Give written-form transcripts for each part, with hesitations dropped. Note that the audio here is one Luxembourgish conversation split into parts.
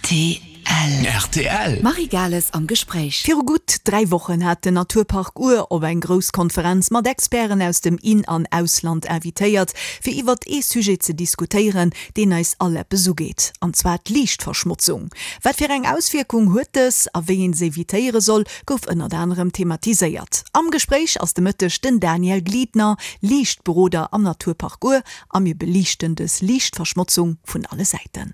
Rtl. Rtl. Marie Gales am Gespréich. Viru gutt 3 Wochen hat den Naturpark Our op eng grouss Konferenz mat Experten aus dem In an Ausland invitéiert, fir iwwert ee Sujet ze diskutéieren, deen eis all eppes ugeet, an zwar d'Liichtverschmotzung. Wat fir eng Auswierkung huet dës a wéi een se evitéiere soll, gouf ënnert anerem thematiséiert. Am Gespréich ass de Mëtteg den Daniel Gliedner, Liichtberoder am Naturpark Our, a mir beliichten dës Liichtverschmotzung vun alle Säiten.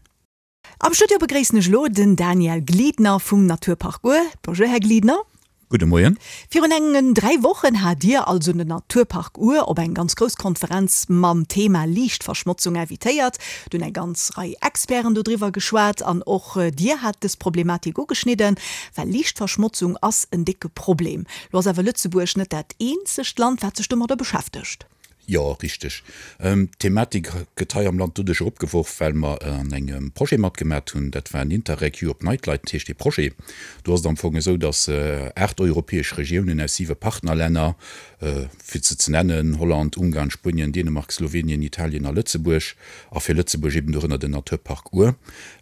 Am Studio begréissen ech elo den Daniel Gliedner vum Naturpark Our. Bonjour Här Gliedner. Gudde Moien. Virun engen 3 Wochen hat Dir also den Naturpark Our op eng ganz grouss Konferenz mam Thema Liichtverschmotzung invitéiert. Do hunn eng ganz Rei Experten dodriwwer geschwat an och Dir hat dës Problematik ugeschnidden, well Liichtverschmotzung ass en décke Problem. Lo ass awer Lëtzebuerg net dat eenzegt Land, wat sech domadder beschäftegt. Jo, richteg. D'Thematik gëtt hei am Land doduerch eropgeworf, well mer an engem Projet matgemat hunn. Dat war en Interreg Europe Night Light heescht dee Projet. Do ass et am Fong esou, datt 8 europäesch Regiounen aus siwe Partnerlänner, fir se ze nennen, Holland, Ungarn, Spuenien, Dänemark, Slowenien, Italien a Lëtzebuerg, a fir Lëtzebuerg eben dorënner den Naturpark Our,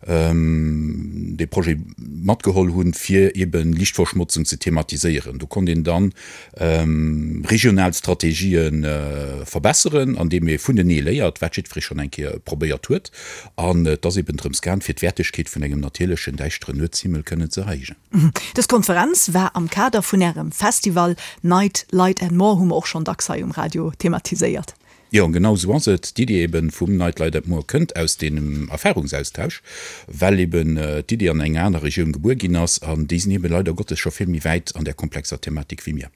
dee Projet matgeholl hunn, fir eben Liichtverschmotzung ze thematiséieren. Do konnt een dann regional Strategië verbesseren, andeem ee vunenee léiert, wat jiddweree schonn eng Kéier probéiert huet. An et ass eben drëms gaang, fir d'Wäertegkeet vun engem natierlechen däischteren Nuetshimmel kënnen ze erhéijen. Dës Konferenz war am Kader vun Ärem Festival Night, Light and More, hu mer och schonn dacks hei um Radio thematiséiert. Jo, genau esou ass et. D'Idee eben vum Night Light and More kënnt aus deem Erfahrungsaustausch, well eben d'Idee an enger aner Regioun gebuer ginn ass an déi sinn eben leider Gottes scho vill méi wäit an där komplexer Thematik wéi mir.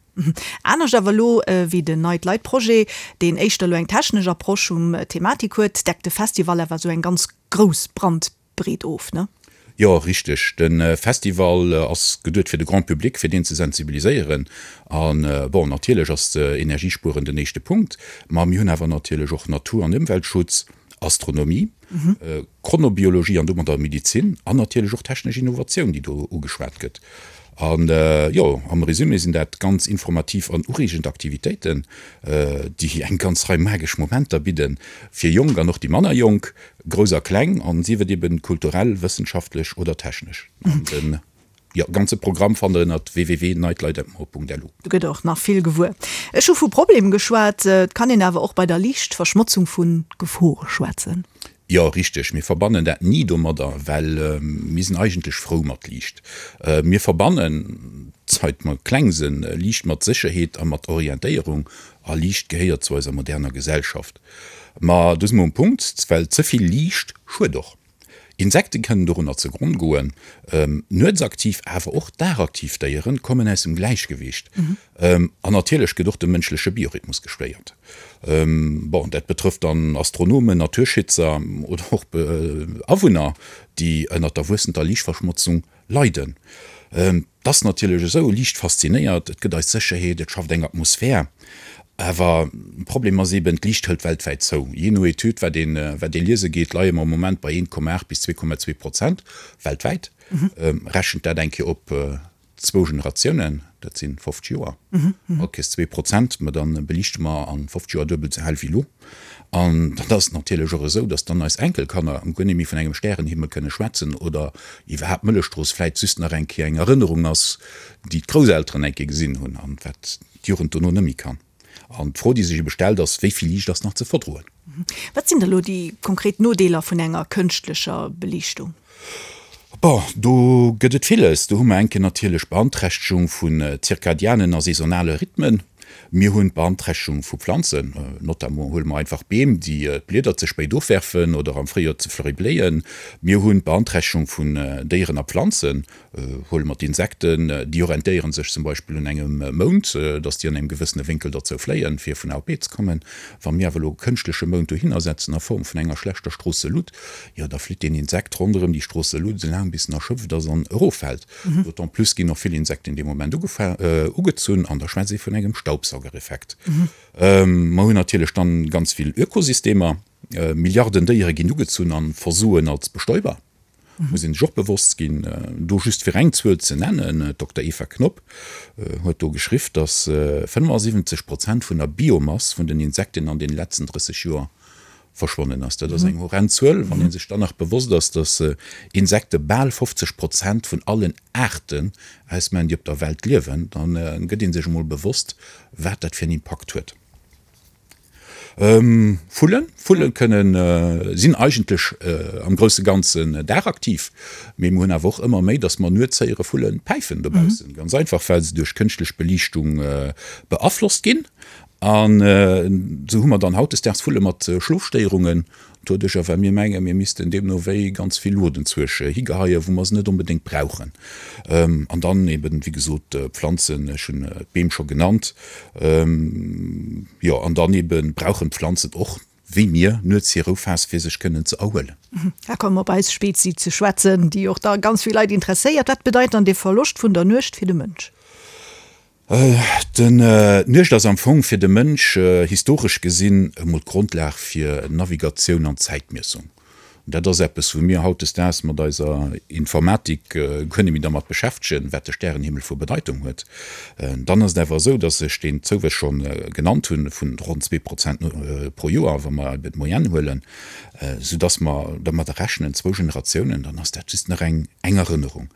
Anescht awer elo wéi den Night Light Projet, deen éischter elo eng technesch Approche vum Thematik huet, deckt de Festival awer esou eng ganz grouss Brand Breet of, ne? Jo, richteg. De Festival ass geduet fir de Grand Public, fir deen ze sensibiliséieren. A bon, natierlech ass Energiespueren den éischte Punkt, ma mir hunn awer natierlech och Natur an Ëmweltschutz, Astronomie, Chronobiologie an domadder Medizin an natierlech och technesch Innovatioun, déi do ugeschwat gëtt. An jo, am Resumé sinn dat ganz informativ an ureegend Aktivitéiten, déi eng ganz Rei magesch Momenter bidden, fir Jonk an och déi manner Jonk, Grouss a kleng, an sief et eben kulturell, wëssenschaftlech oder technesch. An den ganze Programm fannt der ënnert www.nightlightandmore.lu. Do gëtt och nach vill gewuer. Ech hu vu Problem geschwat, et kann een awer och bei der Liichtverschmotzung vu Gefore schwätzen. Jo, richteg. Mir verbannen dat ni domadder, well mir sinn eigentlech frou mat Liicht. Mir verbannen, zait mer kleng sinn, Liicht mat Sécherheet a mat Orientéierung, a Liicht gehéiert zu eiser moderner Gesellschaft. Ma do si mer um Punkt, well ze vill Liicht schued och. Insekte kënnen dorunner ze Gronn goen. Nuetsaktiv, awer och dagaktiv Déieren kommen aus dem Gläichgewicht. An natierlech gëtt och de mënschleche Biorhythmus gestéiert. Bon, dat betrëfft dann Astronomen, Naturschützer oder och Awunner, déi ënnert der wuessender Liichtverschmotzung leiden. Et ass natierlech esou, Liicht faszinéiert, et gëtt eis Sécherheet, et schafft eng Atmosphär. Awer de Problem ass eben, d'Liicht hëlt weltwäit zou. Jee no Etüd, wat een, wat ee liese geet, leie mer am Moment bei 1,8 bis 2,2 Prozent weltwäit. Rechent dat eng Kéier op zwou Generatiounen, dat si 50 Joer, all Kéiers 2 Prozent, ma da beliichte mer a 50 Joer duebel esou hell wéi elo. An dann ass et natierlech och esou, dass dann eis Enkelkanner guer net méi vun engem Stärenhimmel kënne schwätzen oder iwwerhaapt d'Mëllechstrooss vläit just nach eng Kéier eng Erënnerung ass, déi d'Grousselteren eng Kéier gesinn hunn an wat d'Jugend dono net méi kann. An d'Fro, déi sech ebe stellt, ass, Wéi vill Liicht ass nach ze verdroen? Wat sinn da lo déi konkret Nodeeler vun enger kënschtlecher Beliichtung? Bon, do gëtt et villes. Do hu mer eng Kéier natierlech d'Beanträchtegung vun zirkadianen a saisonale Rhythmen. Mir hunn d'Beanträchtegung vu Pflanzen, notamment huele mer einfach Beem, déi d'Blieder ze spéit ofwerfen oder am Fréijoer ze fréi bléien. Mir hunn d'Beanträchtegung vun Déieren a Pflanzen, huele mer d'Insekten, déi orientéiere sech zum Beispill un engem Mound, dass déi an engem gewëssene Wénkel derzou fléien, fir vun A op B ze kommen. Wa mir awer elo e kënschtleche Mound dohinner setzen a Form vun enger schlechter Stroosseluut, jo da flitt deen Insekt ronderëm déi Stroosseluut esou laang bis en erschöpft ass an eroffält. D'autant plus ginn och vill Insekten dee Moment ugezunn an da schwätzt ee vun engem Staubsaugereffekt. Mer hunn natierlech dann ganz vill Ökosystemer, Milliarden Déiere ginn ugezunn an versoen als Bestäuber, muss ee sech och bewosst ginn. Do just fir eng Zuel ze nennen, d'Dokter Eva Knopp huet do geschriff, datt 75 Prozent vun der Biomass vun den Insekten an den letzten 30 Joer. verschwonnen ass. Dat ass eng horrend Zuel, wann ee sech dann nach bewosst ass, datt Insekte bal 50 Prozent vun allen Aarten ausmaachen, déi op der Welt liewen, da gëtt ee sech emol bewosst, wat dat fir en Impakt huet. Vullen, Vulle kënnen, sinn eigentlech am grousse Ganzen dagaktiv, mee mir hunn awer och ëmmer méi, datt mer nuets héiere Vulle päifen dobaussen, ganz einfach well se duerch kënschtlech Beliichtung beaflosst ginn. An esou hu mer dann hautdesdaags Vulle mat Schlofstéierungen doduercher, well mir mengen, mir missten deemno wéi ganz vill Luedenzwuesch higeheien, wou mer se net onbedéngt brauchen. An dann eben, wéi gesot, d'Pflanzen, ech hunn d'Beem scho genannt, jo, an dann eben brauchen d'Pflanzen och, wéi mir, nuets hir Rouphas, fir sech kënnen ze erhuelen. Da komme mer op eis Spezie ze schwätzen, déi och da ganz vill Leit interesséiert. Wat bedeit dann dee Verloscht vun der Nuecht fir de Mënsch? D'Nuecht ass am Fong fir de Mënsch, historesch gesinn, emol d'Grondlag fir Navigatioun an Zäitmiessung. Dat ass eppes, wou mir hautdesdaags mat eiser Informatik guer net méi dermat beschäftegen, wat de Stärenhimmel vu Bedeitung huet. Dann ass et awer esou, datt ech deen Zouwuess scho genannt hunn, vun ronn 2% pro Joer, wa mer eben d'Moyenne huelen, soudatt mer dermadder rechnen, zwou Generatiounen, dann ass dat just nach eng Erënnerung.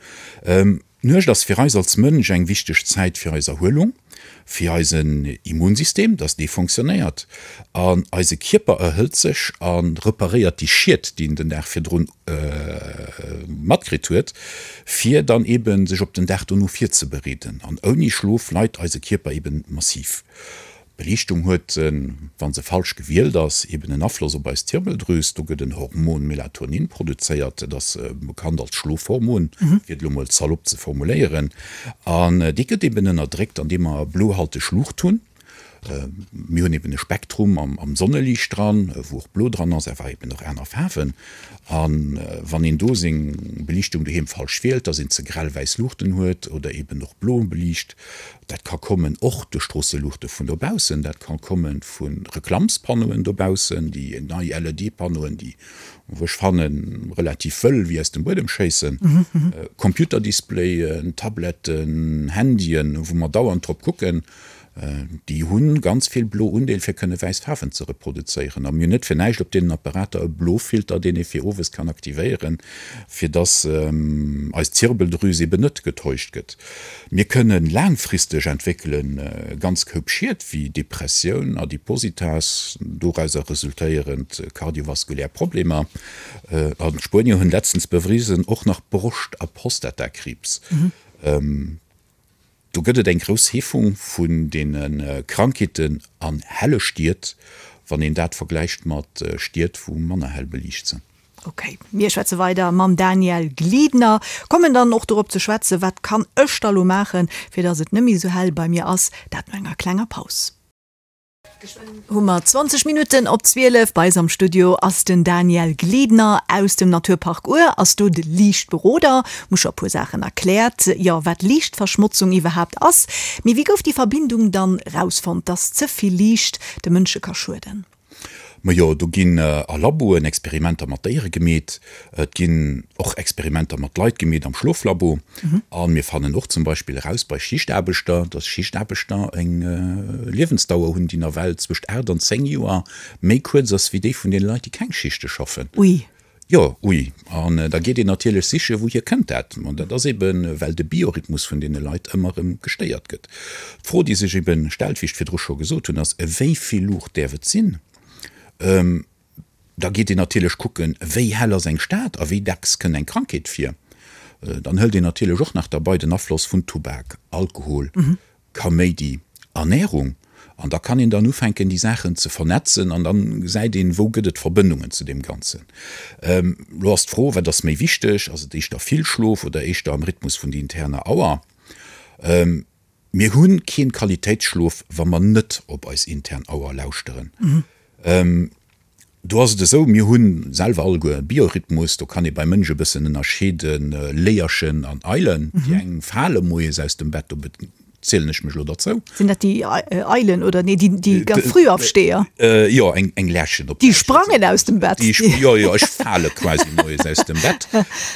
D'Nuecht ass fir eis als Mënsch eng wichteg Zäit fir eis Erhuelung, fir eisen Immunsystem, dass dee fonctionnéiert an eise Kierper erhëlt sech a reparéiert déi Schied, déi en den Dag virdrun matkritt huet, fir dann eben sech op den Dag dono virzebereeden. An ouni Schlof leit eise Kierper eben massiv. D'Beliichtung huet, wa se falsch gewielt ass, eben en Afloss op eis Zirbeldrüs. Do gëtt en Hormon Melatonin produzéiert, dat ass bekannt als Schlofhormon, fir et elo mol salopp ze formuléieren. An dee gëtt eben ënnerdréckt, andeem mer blohalteg Luucht hunn. Mir hunn eben e Spektrum am Sonneliicht dran, wou och blo dran ass, awer eben och aner Faarwen. A wann een do seng Beliichtung doheem falsch wielt, dass een ze grell wäiss Luuchten huet oder eben och blo beliicht, Dat ka kommen och duerch Stroosseluuchte vun dobaussen, dat ka komme vu Reklammspannoen dobaussen, déi nei LED-Pannoen, déi, wou ech fannen, relativ wëll wéi aus dem Buedem schéissen, Computerdisplayen, Tabletten, Handyen, wou mer dauernd drop kucken. Déi hu ganz vill blo Undeel, fir kënne wäiss Faarwen ze reproduzéieren. A mir hunn net fir näischt op deenen Apparater e Blofilter, deen ee fir owes kann aktivéieren, fir dass eis Zirbeldrüs eben net getäuscht gëtt. Mir kënne laangfristeg entwéckele ganz Koup Schied wéi Depressioun, Adipositas, dorauser resultéierend kardiovaskulär Problemer. An d'Spuenier hunn letztens bewisen, och nach Broscht a Prostatakriibs. Do gëtt et eng grouss Heefung vun deene Krankheeten an helle Stied, wann een dat vergläicht mat Stied, wou manner hell beliicht sinn. Ok, mir schwätze weider mam Daniel Gliedner, kommen dann och dorop ze schwätzen, wat kann ech da lo maachen, fir dass et net méi esou hell bei mir ass, dat no enger klenger Paus. Geschwënn hu mer 20 Minutten op 12. Bei eis am Studio ass den Daniel Gliedner aus dem Naturpark Our, ass do de Liichtberoder. Hu scho e puer Saachen erkläert, jo, wat Liichtverschmotzung iwwerhaapt ass. Mee wéi gouf déi Verbindung dann rausfonnt, dass ze vill Liicht de Mënsche ka schueden? Majo, do ginn a Laboen Experimenter mat Déiere gemeet. Et ginn och Experimenter mat Leit gemeet am Schloflabo. A mir fannen och zum Beispill eraus bei Schichtaarbechter, dass Schichtaarbechter eng Liewensdauer hunn, déi nawell zwëscht 8 an 10 Joer méi kuerz ass wéi déi vun deene Leit, déi keng Schichte schaffen. Ui. Jo, ui. An da geet een natierlech sichen, wouhier kënnt dat? An dat ass eben, well de Biorhythmus vun deene Leit ëmmer erëm gestéiert gëtt. D'Fro, déi sech eben stellt, wéi ech virdru scho gesot hunn, ass, Wéi vill Luucht däerf et sinn? Da geet een natierlech kucken, wéi hell ass eng Stad a wéi dacks kënnt eng Krankheet vir? Dann hëlt een natierlech och nach derbei den Afloss vun Tubak, Alkohol, Kaméidi, Ernährung, an da kann een dann ufänken déi Saachen ze vernetzen an dann gesäit een, wou gëtt et Verbënnungen zu deem Ganzen. Elo ass d'Fro, wat ass méi wichteg, ass et éischter vill Schlof oder éischter am Rhythmus vun der interner Auer? Mir hu keen Qualitéitsschlof, wa mer net op eis intern Auer lauschteren. Do ass et esou, mir hu selwer alleguer e Biorhythmus, do kann ee beim Mënsch e bëssen ënnerscheeden, Léierchen an Eilen. Déi eng fale moies aus dem Bett, do. Zielen ech mech elo derzou. Sinn dat déi Eilen oder nee, déi, déi ganz Frühaufsteher? Jo, eng, eng Lerchen op Déi sprangen aus dem Bett. Déi, jo, jo, ech fale quasi moies aus dem Bett.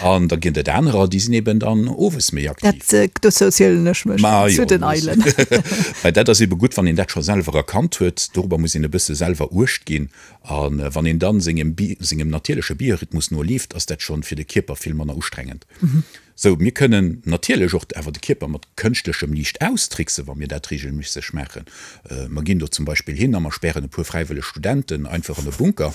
An da ginn et anerer, déi sinn eben dann owes méi aktiv. Dat, dozou zielen ech mech, Ma zu jo, den Eilen. Well dat ass ebe gutt, wann een dat scho selwer erkannt huet. Dorobber muss een e bësse selwer Uecht ginn. A wann een dann sengem, sengem natierleche Biorhythmus no leeft, ass dat schonn fir de Kierper vill manner ustrengend. Sou, mir kënnen natierlech och awer de Kierper mat kënschtlechem Liicht austricksen, wa mir dat regelméisseg maachen. Mer ginn do zum Beispill hin a mer spären e puer fräiwëlleg Studenten einfach an e Bunker,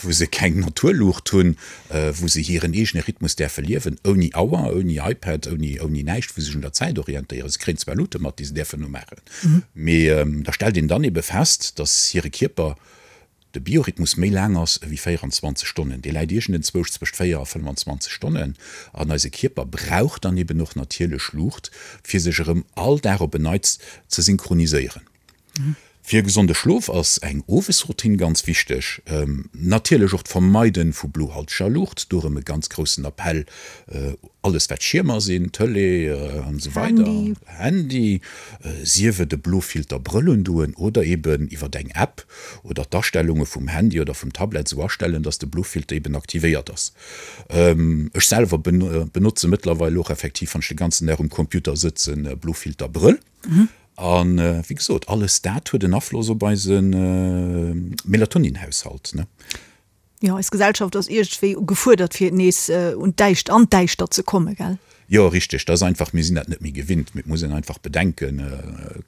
wou se keng Naturluucht hunn, wou se hiren eegene Rhythmus däerfe liewen, ouni Auer, ouni iPad, ouni, ouni näischt, wou se sech un der Zäit orientéieren. Se kréien zwar Luute mat, déi se däerfen umaachen, mee da stellt een dann ebe fest, dass hire Kierper de Biorhythmus méi laang ass ewéi 24 Stonnen. Dee läit iergendenzwousch zwëscht 4 a 25 Stonnen. An eise Kierper brauch dann eben och natierlech Luucht, fir sech erëm all Dag op en Neits ze synchroniséieren. Fir e gesonde Schlof ass eng Owesroutine ganz wichteg. Natierlech och d'Vermeiden vu blohalteger Luucht. Do erëm e ganz groussen Appell, alles wat Schiermer sinn, Tëlee an esou weider, Handy, sief et e Blofilter-Brëll undoen oder eben iwwert eng App oder d'Astellunge vum Handy oder vum Tablet esou astellen, dass de Blofilter eben aktivéiert ass. Ech selwer benotze mëttlerweil och effektiv, wann ech de ganzen Dag um Computer sëtzen, Blofilterbrëll. A wéi gesot, alles dat huet en Afloss op eise Melatoninhaushalt. Jo, eis Gesellschaft ass iergendwéi gefuerdert, fir nees un d'Däischt, an d'Däischtert ze kommen, gell? Jo, richteg. Dat ass einfach, mir sinn dat net méi gewinnt. Mee et muss een einfach bedenken,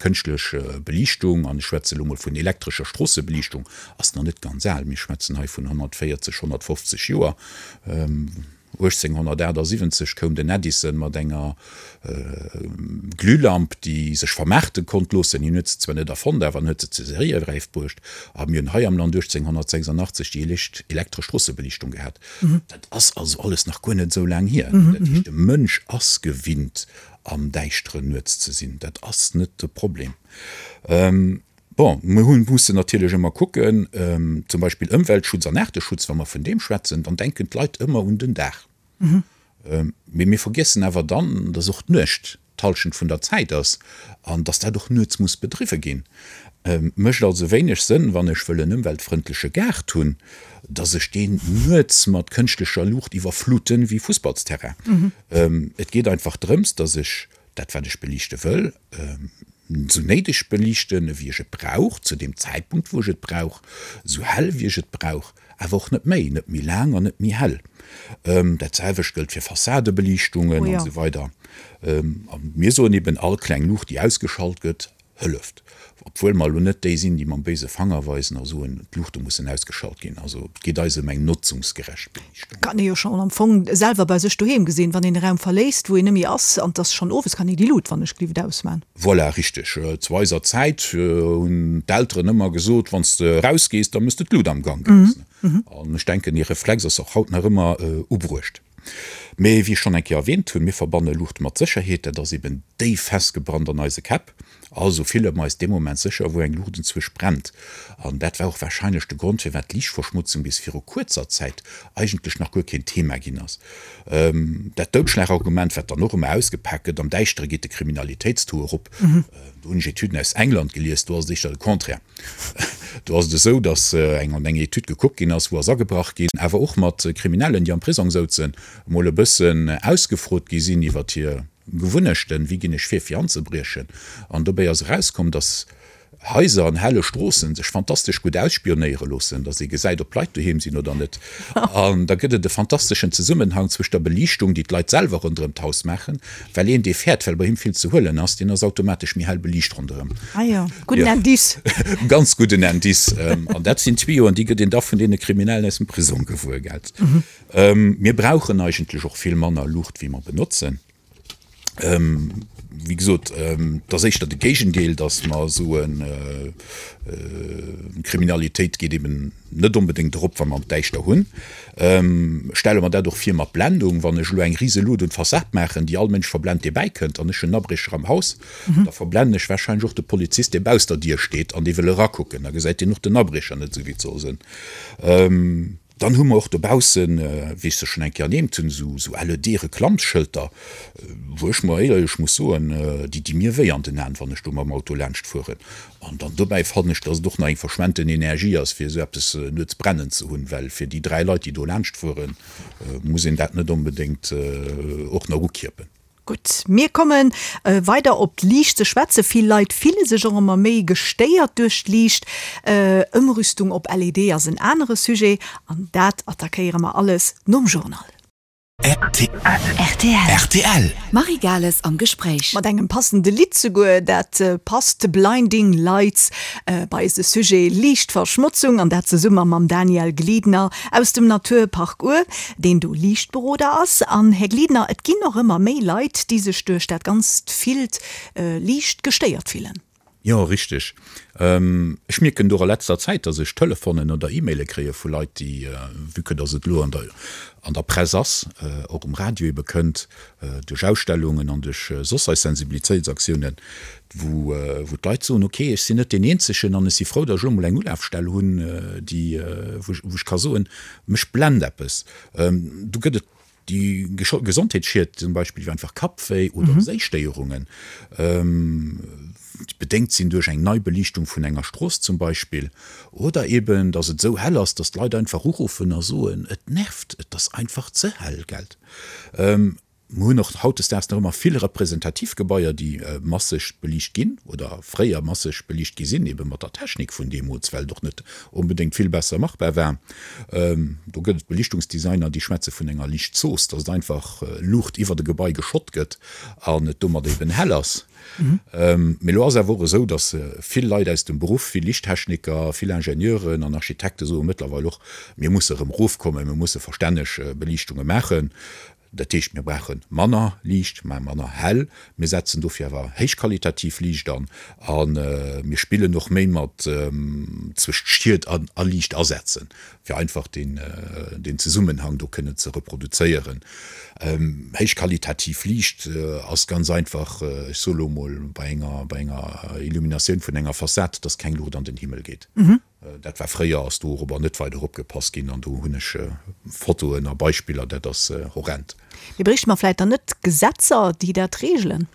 kënschtlech Beliichtung, an ech schwätze elo mol vun elektrescher Stroossebeliichtung, ass nach net ganz al. Mir schwätzen hei vun 140, 150 Joer. 1878 koum den Edison mat enger Glühlamp, déi sech vermaarte konnt loossen. Hien huet se zwar net erfonnt, awer en huet se zur Serieräif bruecht. A mir hunn hei am Land 1886 déi éischt elektresch Stroossebeliichtung gehat. Dat ass also alles nach guer net esou laang hier. Dat heescht, de Mënsch ass gewinnt, am Däischteren nuets ze sinn. Dat ass net de Problem. Bon, mir hunn, mussen natierlech ëmmer kucken, zum Beispill Ëmweltschutz an Aarteschutz, wa mer vun deem schwätzen, dann denken d'Leit ëmmer un den Dag. Mee mir vergiessen awer dann, dass och d'Nuecht d'Hallschent vun der Zäit ass an dass dat och nuets muss bedriwwe ginn. Mécht also wéineg Sënn, wann ech wëll en ëmweltfrëndleche Gaart hunn, dass ech deen nuets mat kënschtlecher Luucht iwwerfluten wéi Fussballsterrain. Et geet einfach drëms, dass ech dat wat ech beliichte wëll, esou néideg beliichten ewéi ech et brauch, zu deem Zäitpunkt wou ech et brauch, esou hell wéi ech et brauch, awer och net méi, net méi laang an net méi hell. Dat selwecht gëllt fir Fassadebeliichtungen an esou weider. A mir soen eben, all kleng Luucht déi ausgeschalt gëtt, hëlleft. Obwuel mer elo net déi sinn, déi mam béise Fanger weisen a soen, d'Luuchte mussen ausgeschalt ginn. Also et geet eis ëm eng notzungsgerecht Beliichtung. Kann ee jo schonn am Fong selwer bei sech doheem gesinn, wann een e Raum verléisst, wou een net méi ass an et ass schonn owes, kann ee déi Lut, wann ech glift, ausman. Voilà, richteg. Zu eiser Zäit hunn d'Elteren ëmmer gesot, wann s de erausgees, da mëss de d'Lut am Gank aus. An ech denken, dee Reflex ass och haut nach ëmmer ubruecht. Mee wéi ech schonn eng Kéier erwähnt hunn, mir verbanne Luucht mat Sécherheet. Dat ass eben déif festgebrannt an eise Käpp. Also fille mer eis dee Moment sécher, wou eng Luucht enzwuesch brennt. An dat war och warscheinlech de Grond, firwat d'Liichtverschmutzung bis viru kuerzer Zäit eigentlech nach guer keen Thema ginn ass. Dat Doudschlagargument, wat dann och ëmmer ausgepak gëtt, am Däischtere geet de Kriminalitéitstaux erop, do hunn ech Etüden aus England gelies, do ass et éischter de Contraire. Do ass et esou, datt eng an eng Etüd gekuckt ginn ass, wou ass agebrach ginn, awer och mat Kriminellen, déi am Prisong souzen, emol e bëssen ausgefrot gi sinn iwwert hir Gewunnechten, wéi ginn ech vir, fir anzebriechen. An dobäi ass erauskomm, datt Haiser an helle Stroossen sech fantastesch gutt ausspionéiere loossen, datt ee gesäit, ob d'Leit doheem sinn oder net. An da gëtt et e fantasteschen Zesummenhang zwëscht der Beliichtung, déi d'Leit selwer ronderëm d'Haus maachen, well een, dee fäert, well bei him vill ze huelen ass, deen ass automatesch méi hell beliicht ronderëm. Ah jo, gudden Indice. Ganz gudden Indice. An dat sinn Tuyauxen, déi gëtt een da vun deene Kriminellen aus dem Prisong gewuer, gell. Mir brauchen eigentlech och vill manner Luucht, wéi mer benotzen. Wéi gesot, et ass éischter de Géigendeel, datt mer soen, d'Kriminalitéit geet eben net onbedéngt erop, wa mer d'Däischter hunn. Stelle mer dat och vir mat Blendung, Wann ech elo eng rise Lut un d'Fassad maachen, déi all Mënsch verblent, dee bäikënnt, an ech hunn en Abriecher am Haus, da verblennen ech warscheinlech och de Polizist, dee bausst der Dier steet an dee wëll erakucken. Da gesäit deen och den Abriecher net esou, wéi et soll sinn. Dann hu mer och dobaussen, wéi ech se schonn eng Kéier erneemt hunn, esou LED-Reklammsschëlter, wou ech mer éierlech muss soen, déi di mir wéi an den Aen, wann ech do mam Auto laanscht fueren. An dann dobäi fannen ech, dass et och nach eng verschwenten Energie ass, fir esou eppes nuets brennen ze hunn, well fir déi 3 Leit, déi do laanscht fueren, muss een dat net onbedéngt och nach ukierpen. Gutt, mir komme weider op d'Liicht ze schwätzen. Vill Leit fille sech och ëmmer méi gestéiert duerch d'Liicht. Ëmrüstung op LED ass en anere Sujet an dat attackéiere mer alles nom Journal. Rtl. Marie Gales am Gespréich. Mat engem passende Lidd souguer, dat passt, Blinding Lights, bei eise Sujet Liichtverschmotzung an dat zesumme mam Daniel Gliedner aus dem Naturpark Our. deen do Liichtberoder ass. An, Här Gliedner, et ginn och ëmmer méi Leit, déi sech duerch dat ganzt villt Liicht gestéiert fillen. Jo, richteg. Ech mierken do a letzter Zäit, dass ech Telefonen oder E-Maile kréie vu Leit, déi, vue que dass et elo an der an der Press ass, och um Radio ebe kënnt, duerch Ausstellungen an duerch soss eis Sensibilitéitsaktiounen, wou wou d'Leit soen, ok, ech sinn net deen Eenzegen an ech si frou, datt ech elo emol eng Ulafstell hunn, déi, wou ech wou ech ka soen, mech blend eppes. Do gëtt et déi Gesondheetsschied zum Beispill wéi einfach Kappwéi oder Séistéierungen, déi bedéngt sinn duerch eng Neibeliichtung vun enger Strooss zum Beispill, oder eben, datt et esou hell ass, datt d'Leit einfach uruffen a soen, et nervt, et ass einfach ze hell, gelt. Mer hunn och hautdesdaags nach ëmmer vill representativ Gebaier, déi masseg beliicht ginn oder fréier masseg beliicht gi sinn, ebe mat der Technik vun deemools, well et och net onbedéngt vill besser machbar war. Do gëtt et Belichtungsdesigner, déi schwätze vun enger Liichtzooss, dass et einfach Luucht iwwert e Gebai geschott gëtt an et domat eben hell ass. Mee elo ass awer och esou, dass vill Leit aus dem Beruff, vill Lichttechniker, vill Ingenieuren an Architekte soe mëttlerweil och, mir musse erëm erofkommen, mir musse verstänneg Beliichtunge maachen. Dat heescht, mir brauche manner Liicht, mä manner hell. Mir setzen dofir awer héichqualitativ Liicht an a mir spillen och méi mat zwëscht Schied a Liicht asetzen, fir einfach deen Zesummenhang do kënnen ze reproduzéieren. Héichqualitativ Liicht ass ganz einfach, ech soe lo emol, bei enger, bei enger Illuminatioun vun enger Fassad, dass keng Luucht an den Himmel geet. Dat war fréier, ass dorobber net weider opgepasst ginn an do hunn ech Fotoen a Beispiller, dat ass horrend. Mee bréichte mer vläit dann net Gesetzer, déi dat reegelen?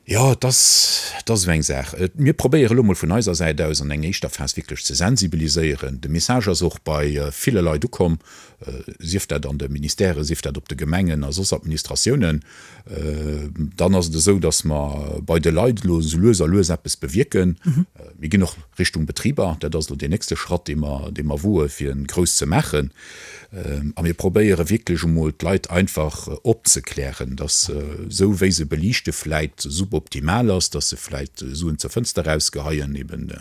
Jo, et ass, et ass esou eng Saach. Mir probéiere elo mol vun eiser Säit aus an enger éischter Phas wierklech ze sensibiliséieren. De Message ass och bei ville Leit ukomm, sief dat an de Ministèren, sief dat op de Gemengen a soss Administratiounen. Dann ass et esou, datt mer bei de Leit elo esou lues a lues eppes bewierken. Mir ginn och Richtung Betriber. Dat ass elo deen nächste Schratt, dee mer, dee mer woe fir en grouss ze maachen. A mir probéiere wierklech emol d'Leit einfach opzeklären, datt esou wéi se beliichte vläit suboptimal ass, datt se vläit Suen zur Fënster erausgeheien, eben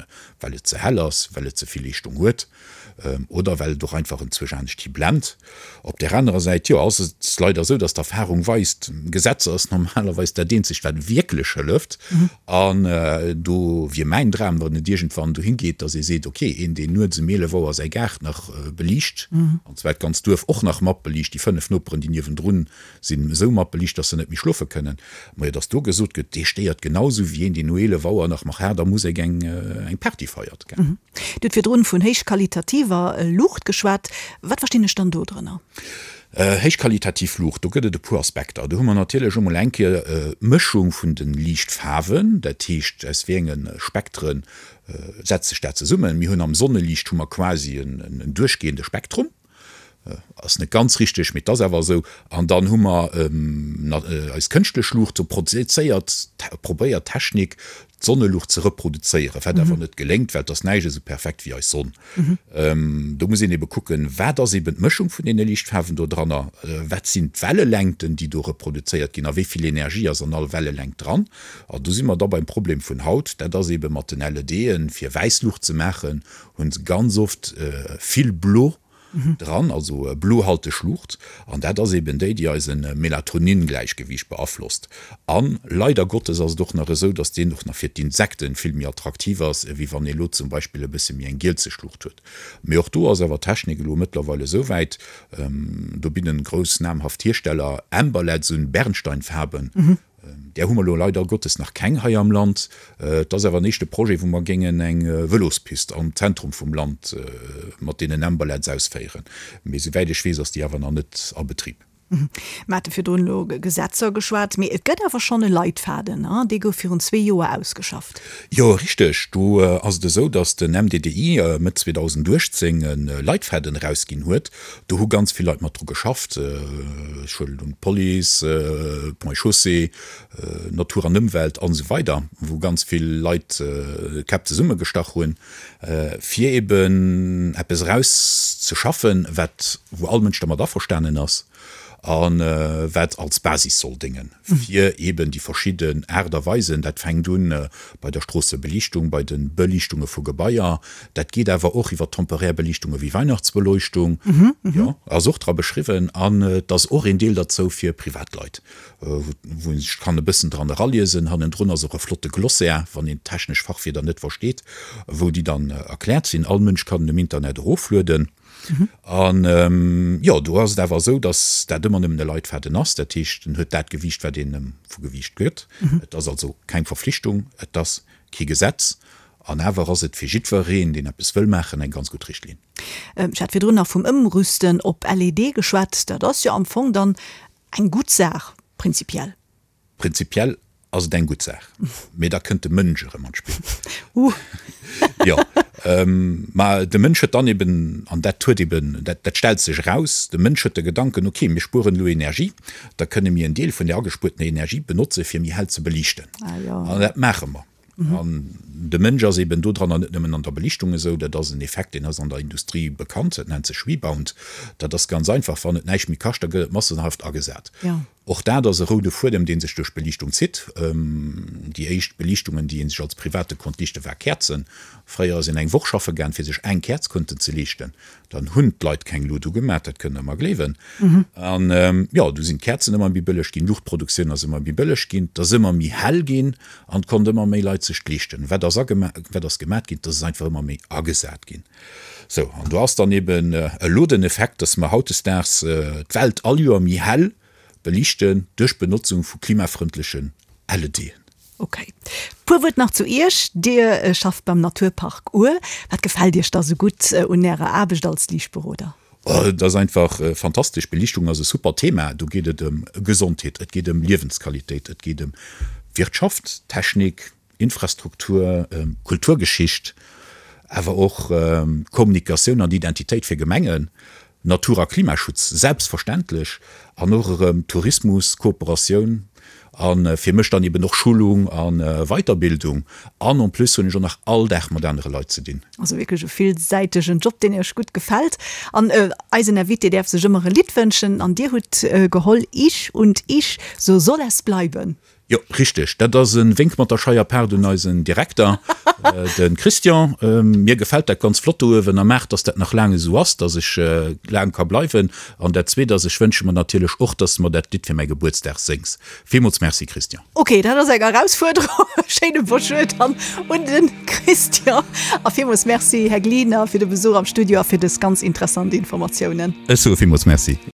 well et ze hell ass, well et ze vill Leeschtung huet. Oder well et och einfach enzwousch anescht hi blent. Op där anerer Säit, jo, ass et leider esou, dass d'Erfahrung weist, Gesetzer ass normalerweis dat eenzegt, wat wierklech hëlleft. An do wier mäin Dram, wann et iergendwann dohi geet, dass ee seet, okay, een, deen nuets um 11 Auer säi Gaart nach beliicht, an zwar d'ganzt Duerf och nach matbeliicht, déi 5 Noperen, déi niewendrun sinn, esou matbeliicht, dass se net méi schlofe kënnen, majo, dass do gesot gëtt, dee stéiert genau esou wéi een, deen no 11 Auer nach mat haarder Musek eng Party feiert. Dir hutt virdrun vun héichqualitativer Luucht geschwat. Wat verstinn ech dann do drënner? Héichqualitativ Luucht, do gëtt et e puer Aspekter. Do hu mer natierlech emol eng Kéier d'Mëschung vun de Liichtfaarwen, dat heescht aus wéi enge Spektre setzt sech dat zesummen. Mir hunn am Sonneliicht hu mer quasi en duerchgehende Spektrum. Ass net ganz richteg, mee et ass awer esou. An dann hu mer eis kënschtlech Luucht, do produzéiert, probéiert d'Technik d'Sonneluucht ze reproduzéieren, wat awer net geléngt, well et ass näischt esou perfekt wéi eis Sonn. Do muss een ebe kucken, wat ass eben d'Mëschung vun deene Liichtfaarwen do dranner, wat sinn d'Wellelängten, déi do reproduzéiert ginn a wéi vill Energie ass an all Wellelängt dran. An do si mer da beim Problem vun haut, dat ass ebe mat den LEDen, fir wäiss Luucht ze maachen, hunn se ganz oft vill Blo dran, also blohalteg Luucht, an dat ass eben déi, déi eise Melatonin-Gläichgewiicht beaflosst. A leider Gottes ass et och nach esou, dass deen och nach fir d'Insekten vill méi attraktiv ass, ewéi wann ee lo zum Beispill e bësse méi eng gielzeg Luucht huet. Mee och do ass awer d'Technik elo mëttlerweil esou wäit, do bidden grouss namhaft Hiersteller Amberleds un, Bernsteinfaarben. Där hu mer elo leider Gottes nach keng hei am Land. Et ass awer en éischte Projet, wou mer géingen eng Vëlospist am Zentrum vum Land mat deenen Amberleds ausféieren. Mee souwäit ech weess, ass déi awer nach net a Betrib. Mer hate virdrun elo Gesetzer geschwat, mee et gëtt awer schonn e Leitfaden, dee gouf virun zwee Joer ausgeschafft. Jo, richteg. Do ass et esou, datt den MDDI Mëtt 2018 e Leitfaden erausginn huet. Do hu ganz vill Leit mat dru geschafft. Ech huelen un d'Police, Ponts et Chaussées, Natur an Ëmwelt an esou weider, wou ganz vill Leit d'Käpp zesummegestach hunn, fir eben eppes erauszeschaffen, wat, wou all Mënsch dermat averstanen ass a wat als Basis soll déngen, fir eben déi verschidden Aart a Weisen, dat fänkt un bei der Stroossebeliichtung, bei de Beliichtunge vu Gebaier, dat geet awer och iwwer temporär Beliichtunge wéi Weihnachtsbeleuchtung, jo, ass och dra beschriwwen an et ass och een Deel derzou fir Privatleit. wou een sech kann e bëssen dran eraliesen. Hannendrun ass och e flotte Glossaire, wann een technesch Fachwierder net versteet, wou déi dann erkläert sinn. All Mënsch kann en um Internet eroflueden. An jo, do ass et awer esou, datt dat ëmmer nëmmen e Leitfaden ass. Dat heescht, en huet dat Gewiicht, wat een em vu Gewiicht gëtt. Et ass also keng Verflichtung, et ass kee Gesetz. An awer ass et fir jiddwereen, deen eppes wëll maachen, eng ganz gutt Richtlinn. Ech hat virdrun nach vum Ëmrüsten op LED geschwat. Dat ass jo am Fong dann Eng gutt Saach, prinzipiell. Prinzipiell ass et eng gutt Saach, mee da kënnt de Mënsch erëm an d'Spill. Uh. Jo, ma de Mënsch huet dann eben, an dat huet eben, dat, dat stellt sech eraus, de Mënsch huet de Gedanken, okay, mir spueren elo Energie, da kënne mir en Deel vun där agespuertener Energie benotze fir méi hell ze beliichten. Ah jo. An dat maache mer. An de Mënsch ass eben dodranner net nëmmen an der Belichtung esou, dat ass en Effekt, deen ass an der Industrie bekannt, dat nennt sech Rebound. Dat ass ganz einfach, wann et näischt méi kascht, da gëtt et massenhaft agesat. Och dat ass e roude Fuedem, dee sech duerch d'Belichtung zitt. Déi éischt Belichtungen, déi ee sech als Private konnt liichte war Käerzen. Fréier ass een eng Woch schaffe gaang, fir sech eng Käerz konnten ze leeschten. Dann hunn d'Leit keng Lut ugemat, dat kënnt Der mer gleewen. An jo, du sinn d'Käerzen ëmmer méi bëlleg ginn, d'Luuchtproduktioun ass ëmmer méi bëlleg ginn, et ass ëmmer méi hell ginn an et konnt ëmmer méi Leit sech d'leeschten. Wat ass agema, wat ass gemat ginn? Et ass einfach ëmmer méi agesat ginn. Sou, an do ass dann eben elo den Effekt, dass mer hautdesdaags d'Welt all Joer méi hell beliichten duerch d'Benotzung vu klimafrëndlechen LEDen. Ok. Puer Wuert nach zu Iech, Dir schafft beim Naturpark Our. Wat gefält Iech da sou gutt un Ärer Aarbecht als Liichtberoder? Et ass einfach fantastesch. Beliichtung ass e super Thema. Do geet et ëm Gesondheet, et geet ëm Liewensqualitéit, et geet ëm Wirtschaft, Technik, Infrastruktur, Kulturgeschicht, awer och Kommunikatioun an Identitéit fir Gemengen. Natur a Klimaschutz selbstverständlech an och erëm Tourismus, Kooperatioun a fir mech dann eben och Schulung a Weiterbildung an en plus hunn ech och nach all Dag mat anere Leit ze dinn. Also wierklech e villsäitegen Job, deen Iech gutt gefält. An eisen Invité däerf sech ëmmer e Lidd wënschen an Dir hutt geholl Ich und ich, so soll es bleiben. Jo, richteg. Dat ass e Wénk mat der scheier Paart un eisen Direkter, de Christian. Mir gefält dat ganz flott do uewen a maach, dass dat nach laang esou ass, dass ech laang ka bleiwen. An dat Zweet ass, ech wënsche mer natierlech och, dass de mer dat Lidd fir mäi Gebuertsdag séngs. Villmools Merci, Christian. Ok, dat ass eng Erausfuerderung. Schéine Bonjour dann un de Christian. A villmools Merci, Här Gliner, fir de Besuch am Studio a fir dës ganz interessant Informatiounen. Ech soe villmools Merci.